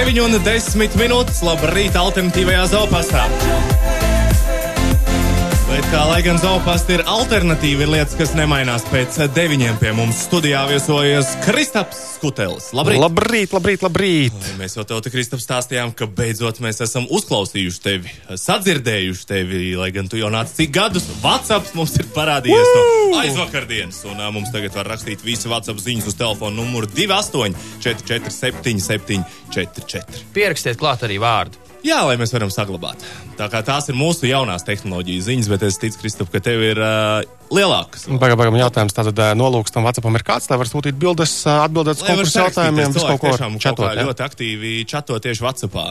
9:10. Labrīt, alternatīvajā Zoopastā. Bet kā lai gan Zoopasta ir alternatīva, ir lietas, kas nemainās pēc 9 pie mums studijā viesojas Kristaps Skutelis. Labrīt! Labrīt! Mēs jau tev, Kristaps, stāstījām, ka beidzot mēs esam uzklausījuši tevi, sadzirdējuši tevi, lai gan tu jau nāc cik gadus. WhatsApps mums ir parādījies no aizvakardienas, un mums tagad var rakstīt visi WhatsApp ziņas uz telefonu numuru 28 447 744. Pierakstiet klāt arī vārdu. Jā, lai mēs varam saglabāt. Tā kā tās ir mūsu jaunās tehnoloģijas ziņas, bet es ticu, Kristap, ka tev ir lielākas. Bagam jautājums, tātad nolūks tam WhatsAppam ir kāds, lai var sūtīt bildes, atbildēt uz konkursu jautājumiem, visu kaut ko čatot. Ļoti aktīvi čato tieši WhatsAppā.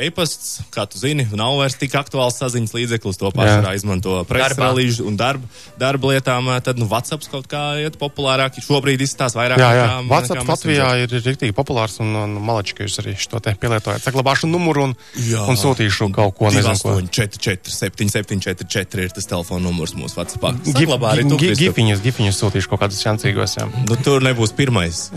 E-pasts, kā tu zini, nav vairs tik aktuāls saziņas līdzeklis, to pārsvarā izmanto presrelīžu un darba lietām, tad WhatsApps kaut kā iet populārāk. Šobrīd izstās vairāk. Jā. WhatsApps Latvijā ir riktīgi populārs un malači, ka jūs arī šo te pielietojat. Saglabāšu numuru un sūtīšu kaut ko, nezinu ko. 284 7744 ir tas telefona numurs mūsu WhatsAppā. Gifiņus sūtīšu kaut kādus šancīgos, jā. Nu, tur nebūs pirmais.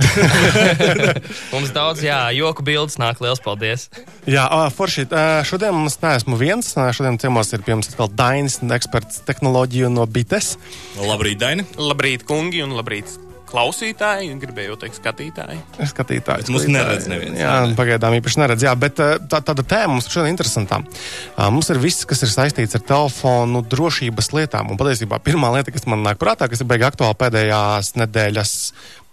Mums daudz, joku bildes nāk, liels paldies. Jā, forši, šodien mums neesmu viens, šodien ciemos ir pie mums atkal Dainis, eksperts tehnoloģiju no Bites. Labrīt, Daini. Labrīt, kungi, un labrīt klausītāji, gribēju teikt skatītāji. Bet mums neredz neviens. Jā, pagaidām īpaši neredz, jā, bet tāda tēma mums šodien interesantā. Mums ir viss, kas ir saistīts ar telefonu drošības lietām, un patiesībā pirmā lieta, kas man nāk prātā, kas ir beigi aktuāli pēdējās nedēļas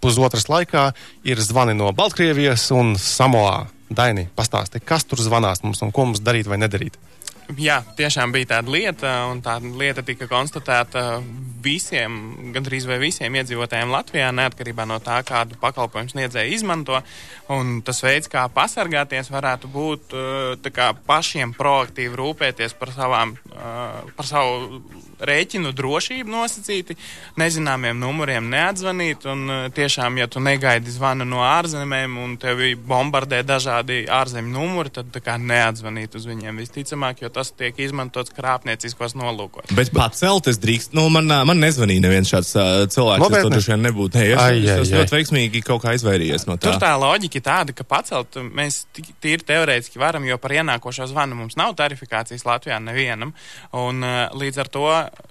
pusotras laikā, ir zvani no Baltkrievijas un Samoā. Daini, pastāsti, kas tur zvanās mums un ko mums darīt vai nedarīt? Jā, tiešām bija tāda lieta, un tā lieta tika konstatēta visiem, gandrīz vai visiem iedzīvotājiem Latvijā, neatkarībā no tā, kādu pakalpojumu sniedzēju izmanto. Un tas veids, kā pasargāties, varētu būt tā kā pašiem proaktīvi rūpēties par savu rēķinu drošību nosacīti, nezināmiem numuriem neatzvanīt, un tiešām, ja tu negaidi zvanu no ārzemēm un tevi bombardē dažādi ārzemju numuri, tad tā kā neatzvanīt uz viņiem visticamāk, jo tas tiek izmantots krāpnieciskos nolūkos. Bet pacelt es drīkst, man nezvanīja neviens šāds cilvēks, es to droši vien nebūtu. Es ļoti veiksmīgi kaut kā izvairījies no tā. Tur tā loģika tāda, ka pacelt mēs tīri teorētiski varam, jo par ienākošo zvanu mums nav tarifikācijas Latvijā nevienam, un līdz ar to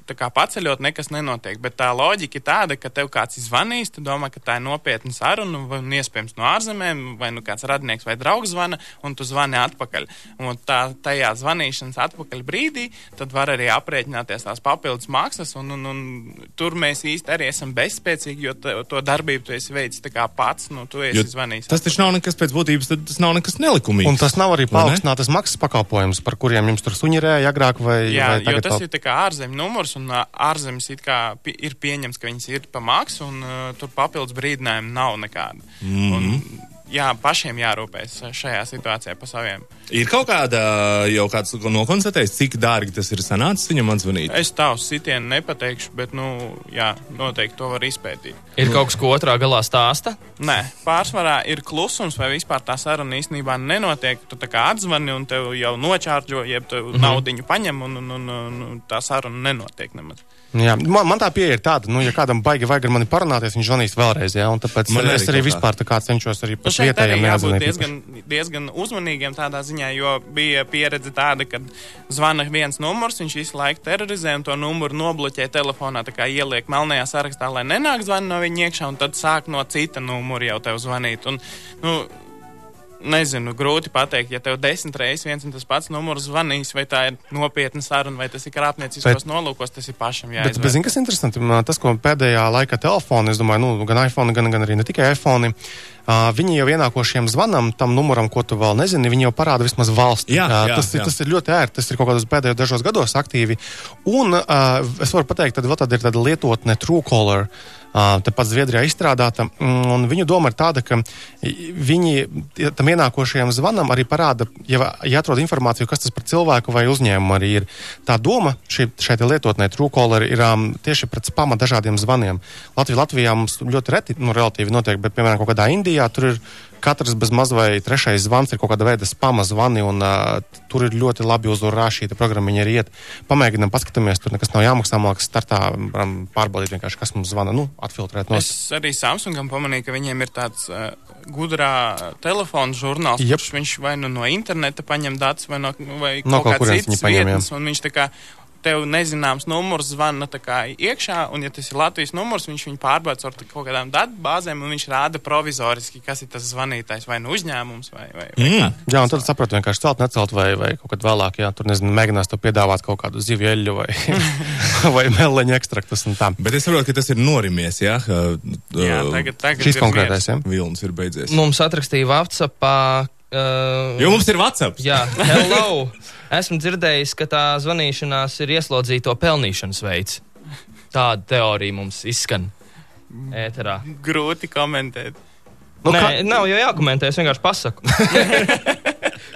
tā kā paceļot nekas nenotiek, bet tā loģika ir tāda, ka tev kāds zvanīs, tu domā, ka tā ir nopietna saruna, vai iespējams no ārzemēm, vai nu kāds radnieks vai draugs zvana, un tu zvani atpakaļ. Un tajā zvanīšanas atpakaļ brīdī, tad var arī aprēķināties tās papildus maksas, un tur mēs īsti arī esam bezspēcīgi, jo to darbību tu esi veicis tā kā pats, tu esi zvanījis. Tas taču nav nekas pēc būtības, tad tas nav nekas nelikumīgs. Un tas nav arī paaugstinātas maksas pakalpojums, par kuriem jums tur suņirēja agrāk vai tagad. Jo tas ir tā kā ārzemju numurs, un ārzemes it kā ir pieņems, ka viņas ir pa maksu, un tur papildus brīdinājumu nav nekāda. Un, pašiem jārūpēs šajā situācijā pa saviem. Ir kaut kāda, jau kāds nokonstatējis, cik dārgi tas ir sanācis viņam atzvanīt? Es tavu sitienu nepateikšu, bet, noteikti to var izpētīt. Ir kaut kas, ko otrā galā stāsta? Nē, pārsvarā ir klusums, vai vispār tā saruna īstenībā nenotiek. Tu tā kā atzvani un tev jau nočārģo, jeb tev naudiņu paņem, un tā saruna nenotiek nemaz. Jā, man tā pieeja ir tāda, ja kādam baigi vajag ar mani parunāties, viņš zvanīs vēlreiz, un tāpēc es arī vispār tā kā cenšos arī par vietējiem neatzvanīt. Šeit arī diezgan uzmanīgiem tādā ziņā, jo bija pieredze tāda, kad zvana viens numurs, viņš visu laiku terorizē un to numuru nobloķē telefonā, tā kā ieliek melnajā sarakstā, lai nenāk zvani no viņa iekšā, un tad sāk no cita numura jau tev zvanīt. Un, nezinu, grūti pateikt, ja tev 10 reizes viens un tas pats numurs zvanīs, vai tā ir nopietna saruna, vai tas ir krāpnieciskos nolūkos, tas ir pašam jāizvēr. Bet zini, kas interesanti, tas, ko pēdējā laika telefoni, es domāju, gan iPhone, gan arī ne tikai iPhone, viņi jau ienākošiem zvanam tam numuram, ko tu vēl nezini, viņi jau parāda vismaz valsti. Tas ir ļoti ērti, tas ir kaut kādos pēdējos dažos gados aktīvi. Un es varu pateikt, tad vēl tāda ir tāda lietotne Truecaller, tepat Zviedrijā izstrādāta, un viņu doma ir tāda, ka viņi tam ienākošajam zvanam arī parāda, ja atrod informāciju, kas tas par cilvēku vai uzņēmumu arī ir. Tā doma šai lietotnē Truecaller ir tieši pret spama dažādiem zvaniem. Latvijā mums ļoti reti, relatīvi notiek, bet, piemēram, kaut kādā Indijā tur ir katrs bez maz vai trešais zvans ir kaut kāda veida spama zvani, un tur ir ļoti labi uzvarā šī programmiņa arī iet. Pamēģinām, paskatāmies, tur nekas nav jāmaksā, mākas startā pārbaudīt vienkārši, kas mums zvana, atfiltrēt. Es arī Samsungam pamanīju, ka viņiem ir tāds gudrā telefona žurnāls, kurš viņš vai no interneta paņem datus, vai kaut kāds cits vietnes, un viņš tā kā tev nezināms numurs zvana tā kā iekšā, un ja tas ir Latvijas numurs, viņš viņu pārbauda ar kaut kādām datubāzēm, un viņš rāda provizoriski, kas ir tas zvanītājs, vai uzņēmums, vai kā. Jā, un tad sapratu vienkārši celt, necelt, vai kaut kad vēlāk, jā, tur mēģinās to piedāvāt kaut kādu zivju eļļu, vai meleņu ekstraktus un tā. Bet es saprotu, ka tas ir norimies, jā? Jā, tagad šis konkrētais, jā? Vilnis ir beidzies. Mums atrakstīja WhatsAppā. Jo mums ir WhatsApp. Jā, hello! Esmu dzirdējis, ka tā zvanīšanās ir ieslodzīto pelnīšanas veids. Tāda teorija mums izskan ēterā. Grūti komentēt. Nē, nav jau jākomentē, es vienkārši pasaku.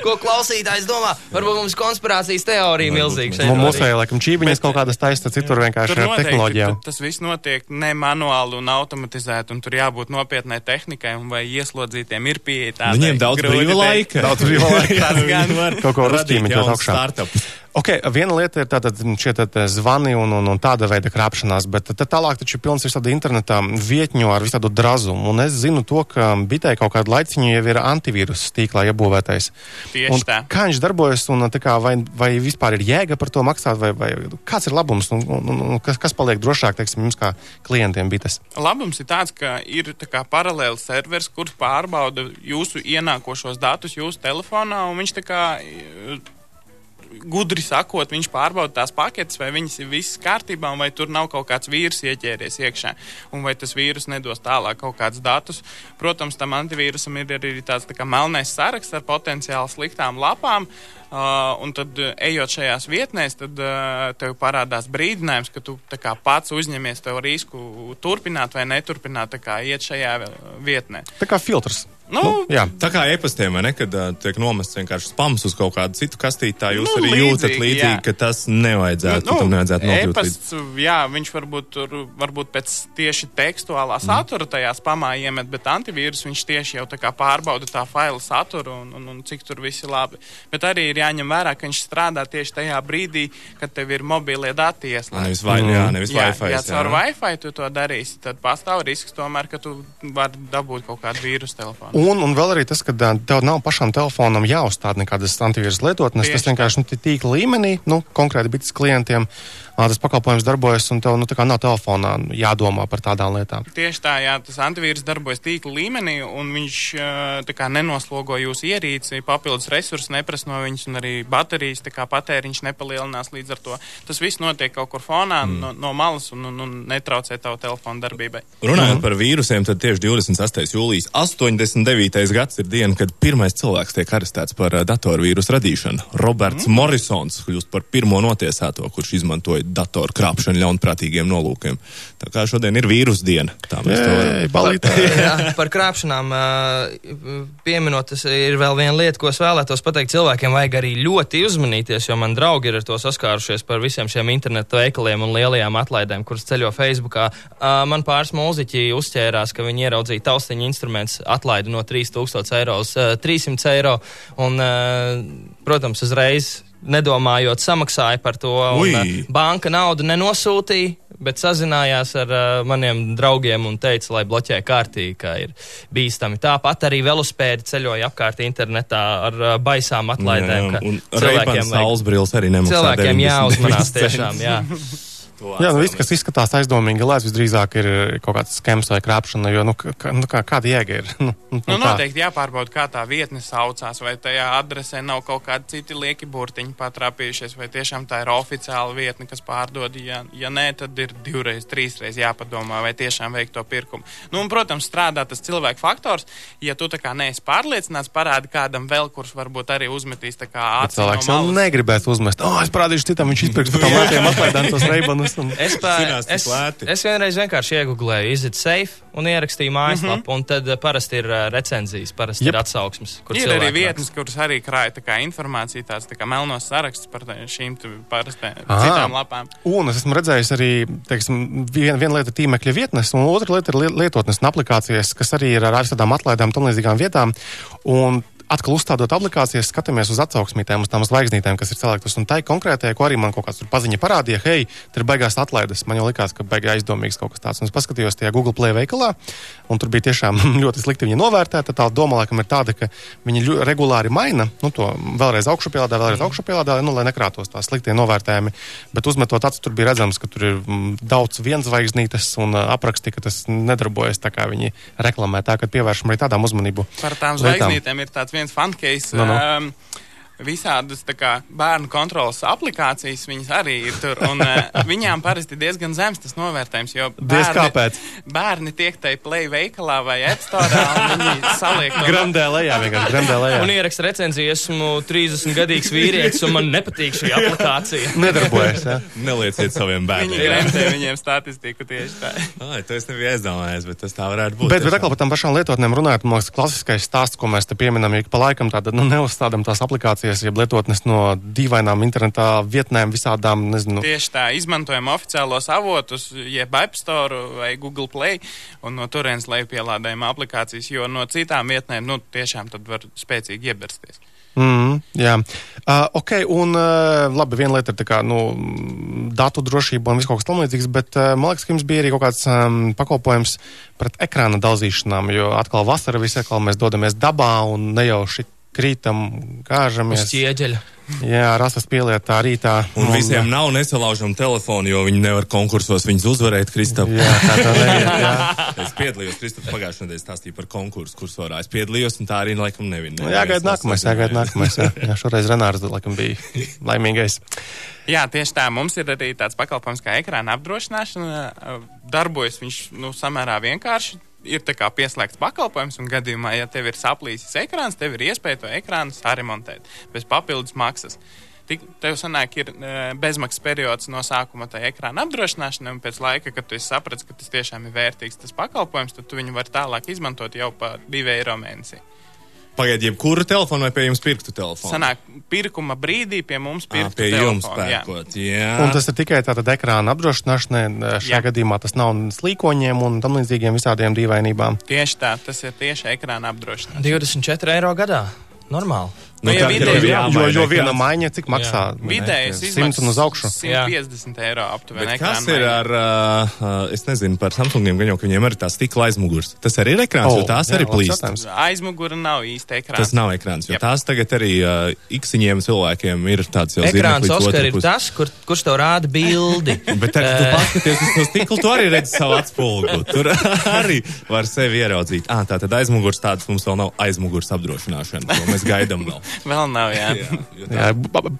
Ko klausītājs domā? Varbūt mums konspirācijas teorija milzīga šeit. Mums vai, laikam, čībiņas kaut kādas taistas, citur vienkārši ar tehnoloģijām. Tas viss notiek ne manuāli un automatizēti, un tur jābūt nopietnai tehnikai, un vai ieslodzītiem ir pieeja tādai. Viņiem daudz brīva laika. Daudz brīva laika. Tas gan var kaut ko uzķīmīt jau augšā. Ok, viena lieta ir tātad šie zvani un tāda veida krāpšanās, bet tālāk taču pilns ir tāda internetā vietņu ar visu tādu drazumu. Un es zinu to, ka bitē kaut kādu laiciņu jau ir antivīrus tīklā iebūvētais. Tieši tā. Kā viņš darbojas un kā, vai vispār ir jēga par to maksāt, vai kāds ir labums un kas paliek drošāk, teiksim, jums kā klientiem bites? Labums ir tāds, ka ir tā kā paralēli servers, kurš pārbauda jūsu ienākošos datus jūsu telefonā, un viņš tā kā gudri sakot, viņš pārbauda tās paketes, vai viņas ir visas kārtībā, un vai tur nav kaut kāds vīrus ieķēries iekšā, un vai tas vīrus nedos tālāk kaut kādus datus. Protams, tam antivīrusam ir arī tāds tā kā melnais saraksts ar potenciāli sliktām lapām, un tad, ejot šajās vietnēs, tad tev parādās brīdinājums, ka tu tā kā pats uzņemies tev risku turpināt vai neturpināt tā kā iet šajā vietnē. Tā kā filtrs. Jā. Tā kā e-pastiem, vai ne, kad tiek nomests vienkārši spams uz kaut kādu citu kastīti, tā jūs arī jūtat līdzīgi, ka tas nevajadzētu, tam nevajadzētu nokļūt e-pasts, jā, viņš varbūt pēc tieši tekstuālā satura tajā spamā iemet, bet antivīrus viņš tieši jau tā kā pārbauda tā faila saturu un cik tur viss ir labi. Bet arī ir jāņem vērā, ka viņš strādā tieši tajā brīdī, kad tev ir mobilie dati ieslēgti. Nevis Wi-Fi. Ja caur Wi-Fi tu to darīsi, tad pastāv risks tomēr, ka tu vari dabūt kaut kādu vīrusu telefonu. Un vēl arī tas, ka tev nav pašam telefonam jāuzstāda nekādas antivīrus lietotnes, tas vienkārši tīkla līmenī, konkrēti bites klientiem, tas pakalpojums darbojas un tev tā kā nav telefonā jādomā par tādām lietām. Tieši tā, jā, tas antivīrus darbojas tīkla līmenī un viņš tā kā nenoslogo jūsu ierīci, papildus resursus neprasa no viņas un arī baterijas tā kā patēriņš nepalielinās līdz ar to. Tas viss notiek kaut kur fonā no malas un netraucē tavu telefonu darbībai. Runājot par vīrusiem, tad tieši 28. jūlijas 89. gads ir diena, kad pirmais cilvēks tiek arestēts par datorvīrusu radīšanu. Roberts Morrisons kļūst par pirmo notiesāto, kurš izmantoja datoru krāpšanu ļaunprātīgiem nolūkiem. Tā kā šodien ir vīrusu diena. Tā mēs to varam. Jā, par krāpšanām pieminot, tas ir vēl viena lieta, ko es vēlētos pateikt. Cilvēkiem vajag arī ļoti uzmanīties, jo man draugi ir ar to saskārušies par visiem šiem internetu veikaliem un lielajām atlaidēm, kuras ceļo Facebookā. Man pāris mūziķi uzķērās, ka viņi ieraudzīja taustiņu instruments atlaidi no 3000 eiro uz 300 eiro un, protams, uzreiz nedomājot, samaksāja par to, un banka naudu nenosūtīja, bet sazinājās ar maniem draugiem un teica, lai bloķē kārtīgi, ka ir bīstami. Tāpat arī velospēdi ceļoja apkārt internetā ar baisām atlaidēm. Un Ray-Ban saulesbrīles arī nemaksā. Cilvēkiem jāuzmanās tiešām, jā. Jā, viss, kas izskatās aizdomīgi lēts, visdrīzāk ir kaut kāds skems vai krāpšana, jo, kāda jēga ir? Noteikti jāpārbauda, kā tā vietne saucās, vai tajā adresē nav kaut kādi citi lieki burtiņi patrāpījušies, vai tiešām tā ir oficiāla vietne, kas pārdod. Ja nē, tad ir 2, 3 jāpadomā, vai tiešām veikt to pirkumu. Un, protams, strādā tas cilvēku faktors. Ja tu tā kā neesi pārliecināts, parādi kādam vēl, kurš varbūt arī uzmetīs tā kā acis no malas. Cilvēks jau negribētu uzmest. Es parādīšu citam, viņš izpirks par tām lētiem atlaidām tos Ray-Banus. zinās. Es vienreiz vienkārši iegooglēju Is it safe un ierakstīju mājaslapu, un tad parasti ir recenzijas, parasti ir atsauksmes. Ir arī vietnes, kuras arī krāja tā kā informācija, tāds tā kā melnos saraksts par šīm citām lapām. Un es esmu redzējis arī, teiksim, viena lieta tīmekļa vietnes, un otra lieta ir lietotnes un aplikācijas, kas arī ir ar tādām atlaidām tam līdzīgām vietām. Un atkal uzstādot aplikācijas, skatāmies uz atsauksmītēm, uz tām zvaigznītēm, kas ir saliktas. Un tai konkrētajai, ko arī man kaut kāds tur paziņa parādīja, hei, tur ir baigās atlaides. Man jau likās, ka baigā aizdomīgs kaut kas tāds. Un es paskatījos tajā Google Play veikalā, un tur bija tiešām ļoti slikti viņa novērtēta. Tā doma, laikam, ir tāda, ka viņi regulāri maina, to vēlreiz augšupielādā, lai nekrātos tās sliktie novērtējumi. Bet uzmetot acis, tur bija redzams, ka tur ir daudz vienzvaigznītes un apraksti, ka tas nedarbojas tā, kā viņi reklamē. Tā, kad pievēršam arī tādām uzmanību. Par tām zvaigznītēm ir tāds viens fun case. Visādas tā kā bērnu kontrolas aplikācijas, viņas arī ir tur, un viņām parasti diezgan zems tas novērtējums, jo bērni tiek tai Play veikalā vai App Store, un viņi saliek to. Grandē lejā. Un ieraksta recenziju, esmu 30-gadīgs vīrietis, un man nepatīk šī aplikācija. Nedarbojas, jā. Nelieciet saviem bērniem. Viņi gremdē viņiem statistiku tieši tā. To es nebiju aizdomājies, bet tas tā varētu būt. Bet atkal par tām pašām lietotnēm runājot, man liekas, klasiskais stāsts, ko mēs te pieminam, ik pa laikam tāda, neuzstādam tās aplikācijas, jeb lietotnes no dīvainām internetā vietnēm visādām, nezinu. Tieši tā, izmantojam oficiālos avotus, jeb App Store vai Google Play, un no turienes lejupielādējam aplikācijas, jo no citām vietnēm, tiešām tad var spēcīgi iebersties. Jā. Ok, un labi, viena lieta ir tā kā, datu drošība un viss kaut kas tam līdzīgs, bet man liekas, ka jums bija arī kaut kāds pakalpojums pret ekrāna dalzīšanām, jo atkal vasara visi atkal mēs dodamies dabā un ne jau šit krītam, kāžamies. Uz ķieģeļa. Jā, rasas pielietā rītā. Un visiem nav nesalaužam telefonu, jo viņi nevar konkursos viņus uzvarēt, Kristap. Jā, tā neviet, jā. Es piedalījos, Kristap pagājušajā nedēļā stāstīja par konkursu kursorā. Es piedalījos, un tā arī laikam nevina. Jāgaida nākamais. Jā, šoreiz Renārs laikam bija laimīgais. Jā, tieši tā. Mums ir arī tāds pakalpojums kā ekrāna apdrošināšana. Darbojas viņš, samērā vienkārši. Ir tā kā pieslēgts pakalpojums, un gadījumā, ja tev ir saplīsis ekrāns, tev ir iespēja to ekrānu saremontēt bez papildus maksas. Tev sanāk, ir bezmaksas periods no sākuma tai ekrāna apdrošināšanai, un pēc laika, kad tu saprati, ka tas tiešām ir vērtīgs tas pakalpojums, tad tu viņu vari tālāk izmantot jau pa 2 eiro mēnesī. Pagaid, jebkuru telefonu vai pie jums pirktu telefonu? Sanāk, pirkuma brīdī pie mums pirktu pie telefonu. Jums pērkot, jā. Un tas ir tikai tātad ekrāna apdrošināšanai, šajā gadījumā tas nav slīkoņiem un tam līdzīgiem visādiem dīvainībām. Tieši tā, tas ir tieši ekrāna apdrošināšana. 24 eiro gadā. Normāli. Jo viena maiņa, cik maksā? Vidējais 100 un uz augšu. 150 eiro aptuveni. Kas ir ar, es nezinu, par Samsungiem, gan jau, ka viņiem arī tā stikla aizmugurs. Tas arī ir ekrāns, jo tās arī plīst. Aizmugura nav īsti ekrāns. Tas nav ekrāns, jo tās tagad arī iksiņiem cilvēkiem ir tāds jau ekrāns, Oskar, ir tas, kurš tev rāda bildi. Bet tad, tu paskaties uz to stiklu, tu arī redzi savu atspulgu. Tur arī var sevi ieraudzīt. Tātad aizmugurs tāds mums vēl nav aizmugurs apdrošināšana, ko mēs gaidām vēl. Vēl nav, jā. Jā,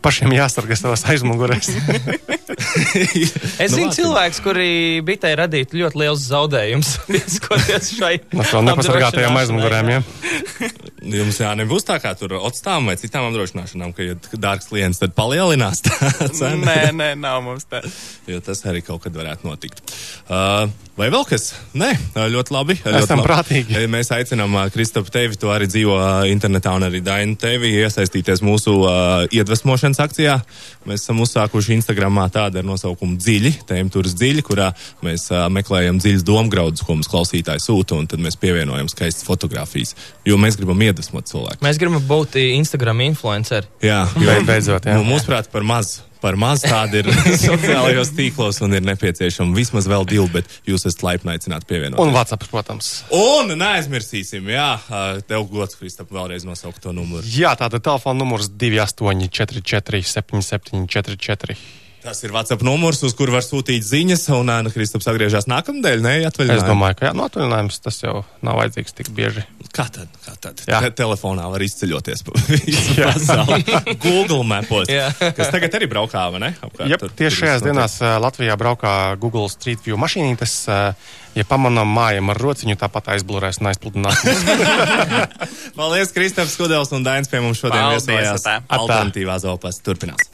pašiem jāsargā savas aizmugurēs. Es zinu cilvēks, kuri bitai radītu ļoti liels zaudējums, skoties šai nepasargātajām aizmugurēm, jā. Jums nebūs tā kā tur otstām vai citām apdrošināšanām, ka, ja dārgs klients, tad palielinās tā cena? Nē, nav mums tā. Jo tas arī kaut kad varētu notikt. Vai vēl kas? Nē, ļoti labi. Esam prātīgi. Mēs aicinām Kristapu tevi, tu arī dzīvo internetā, un arī Dainu tevi iesaistīties mūsu iedvesmošanas akcijā. Mēs esam uzsākuši Instagramā tādu ar nosaukumu Dziļi, tēmturas Dziļi, kurā mēs meklējam dziļas domgraudus, ko mums klausītāji sūta, un tad mēs pievienojam skaistas fotogrāfijas, jo mēs gribam iedvesmot cilvēku. Mēs gribam būt Instagram influenceri. Jā, beidzot, jā. Mūsuprāt, par maz tādi ir sociālajos tīklos un ir nepieciešama vismaz vēl 2, bet jūs esat laipni aicināti pievienot. Un WhatsApp, protams. Un neaizmirsīsim, tev gods, Kristap, vēlreiz nosaukt to numuru. Jā, tātad telefona numurs 2844 7744. Tas ir WhatsApp numurs, uz kur var sūtīt ziņas, un Kristaps atgriežas nākamnedēļ, atvaļinājumā. Es domāju, ka atvaļinājums tas jau nav vajadzīgs tik bieži. Kā tad? Telefonā var izceļoties pa visu pasauli. Google mapos, kas tagad arī braukā, vai ne? Tieši šajās dienās Latvijā braukā Google Street View mašīnītes. Ja pamanām mājam ar rociņu, tāpat aizblurēs un aizpludinās. Paldies, Kristaps Skudels un Dainis pie mums šodien viesojās. Alternatīvā Zolpas turpinās.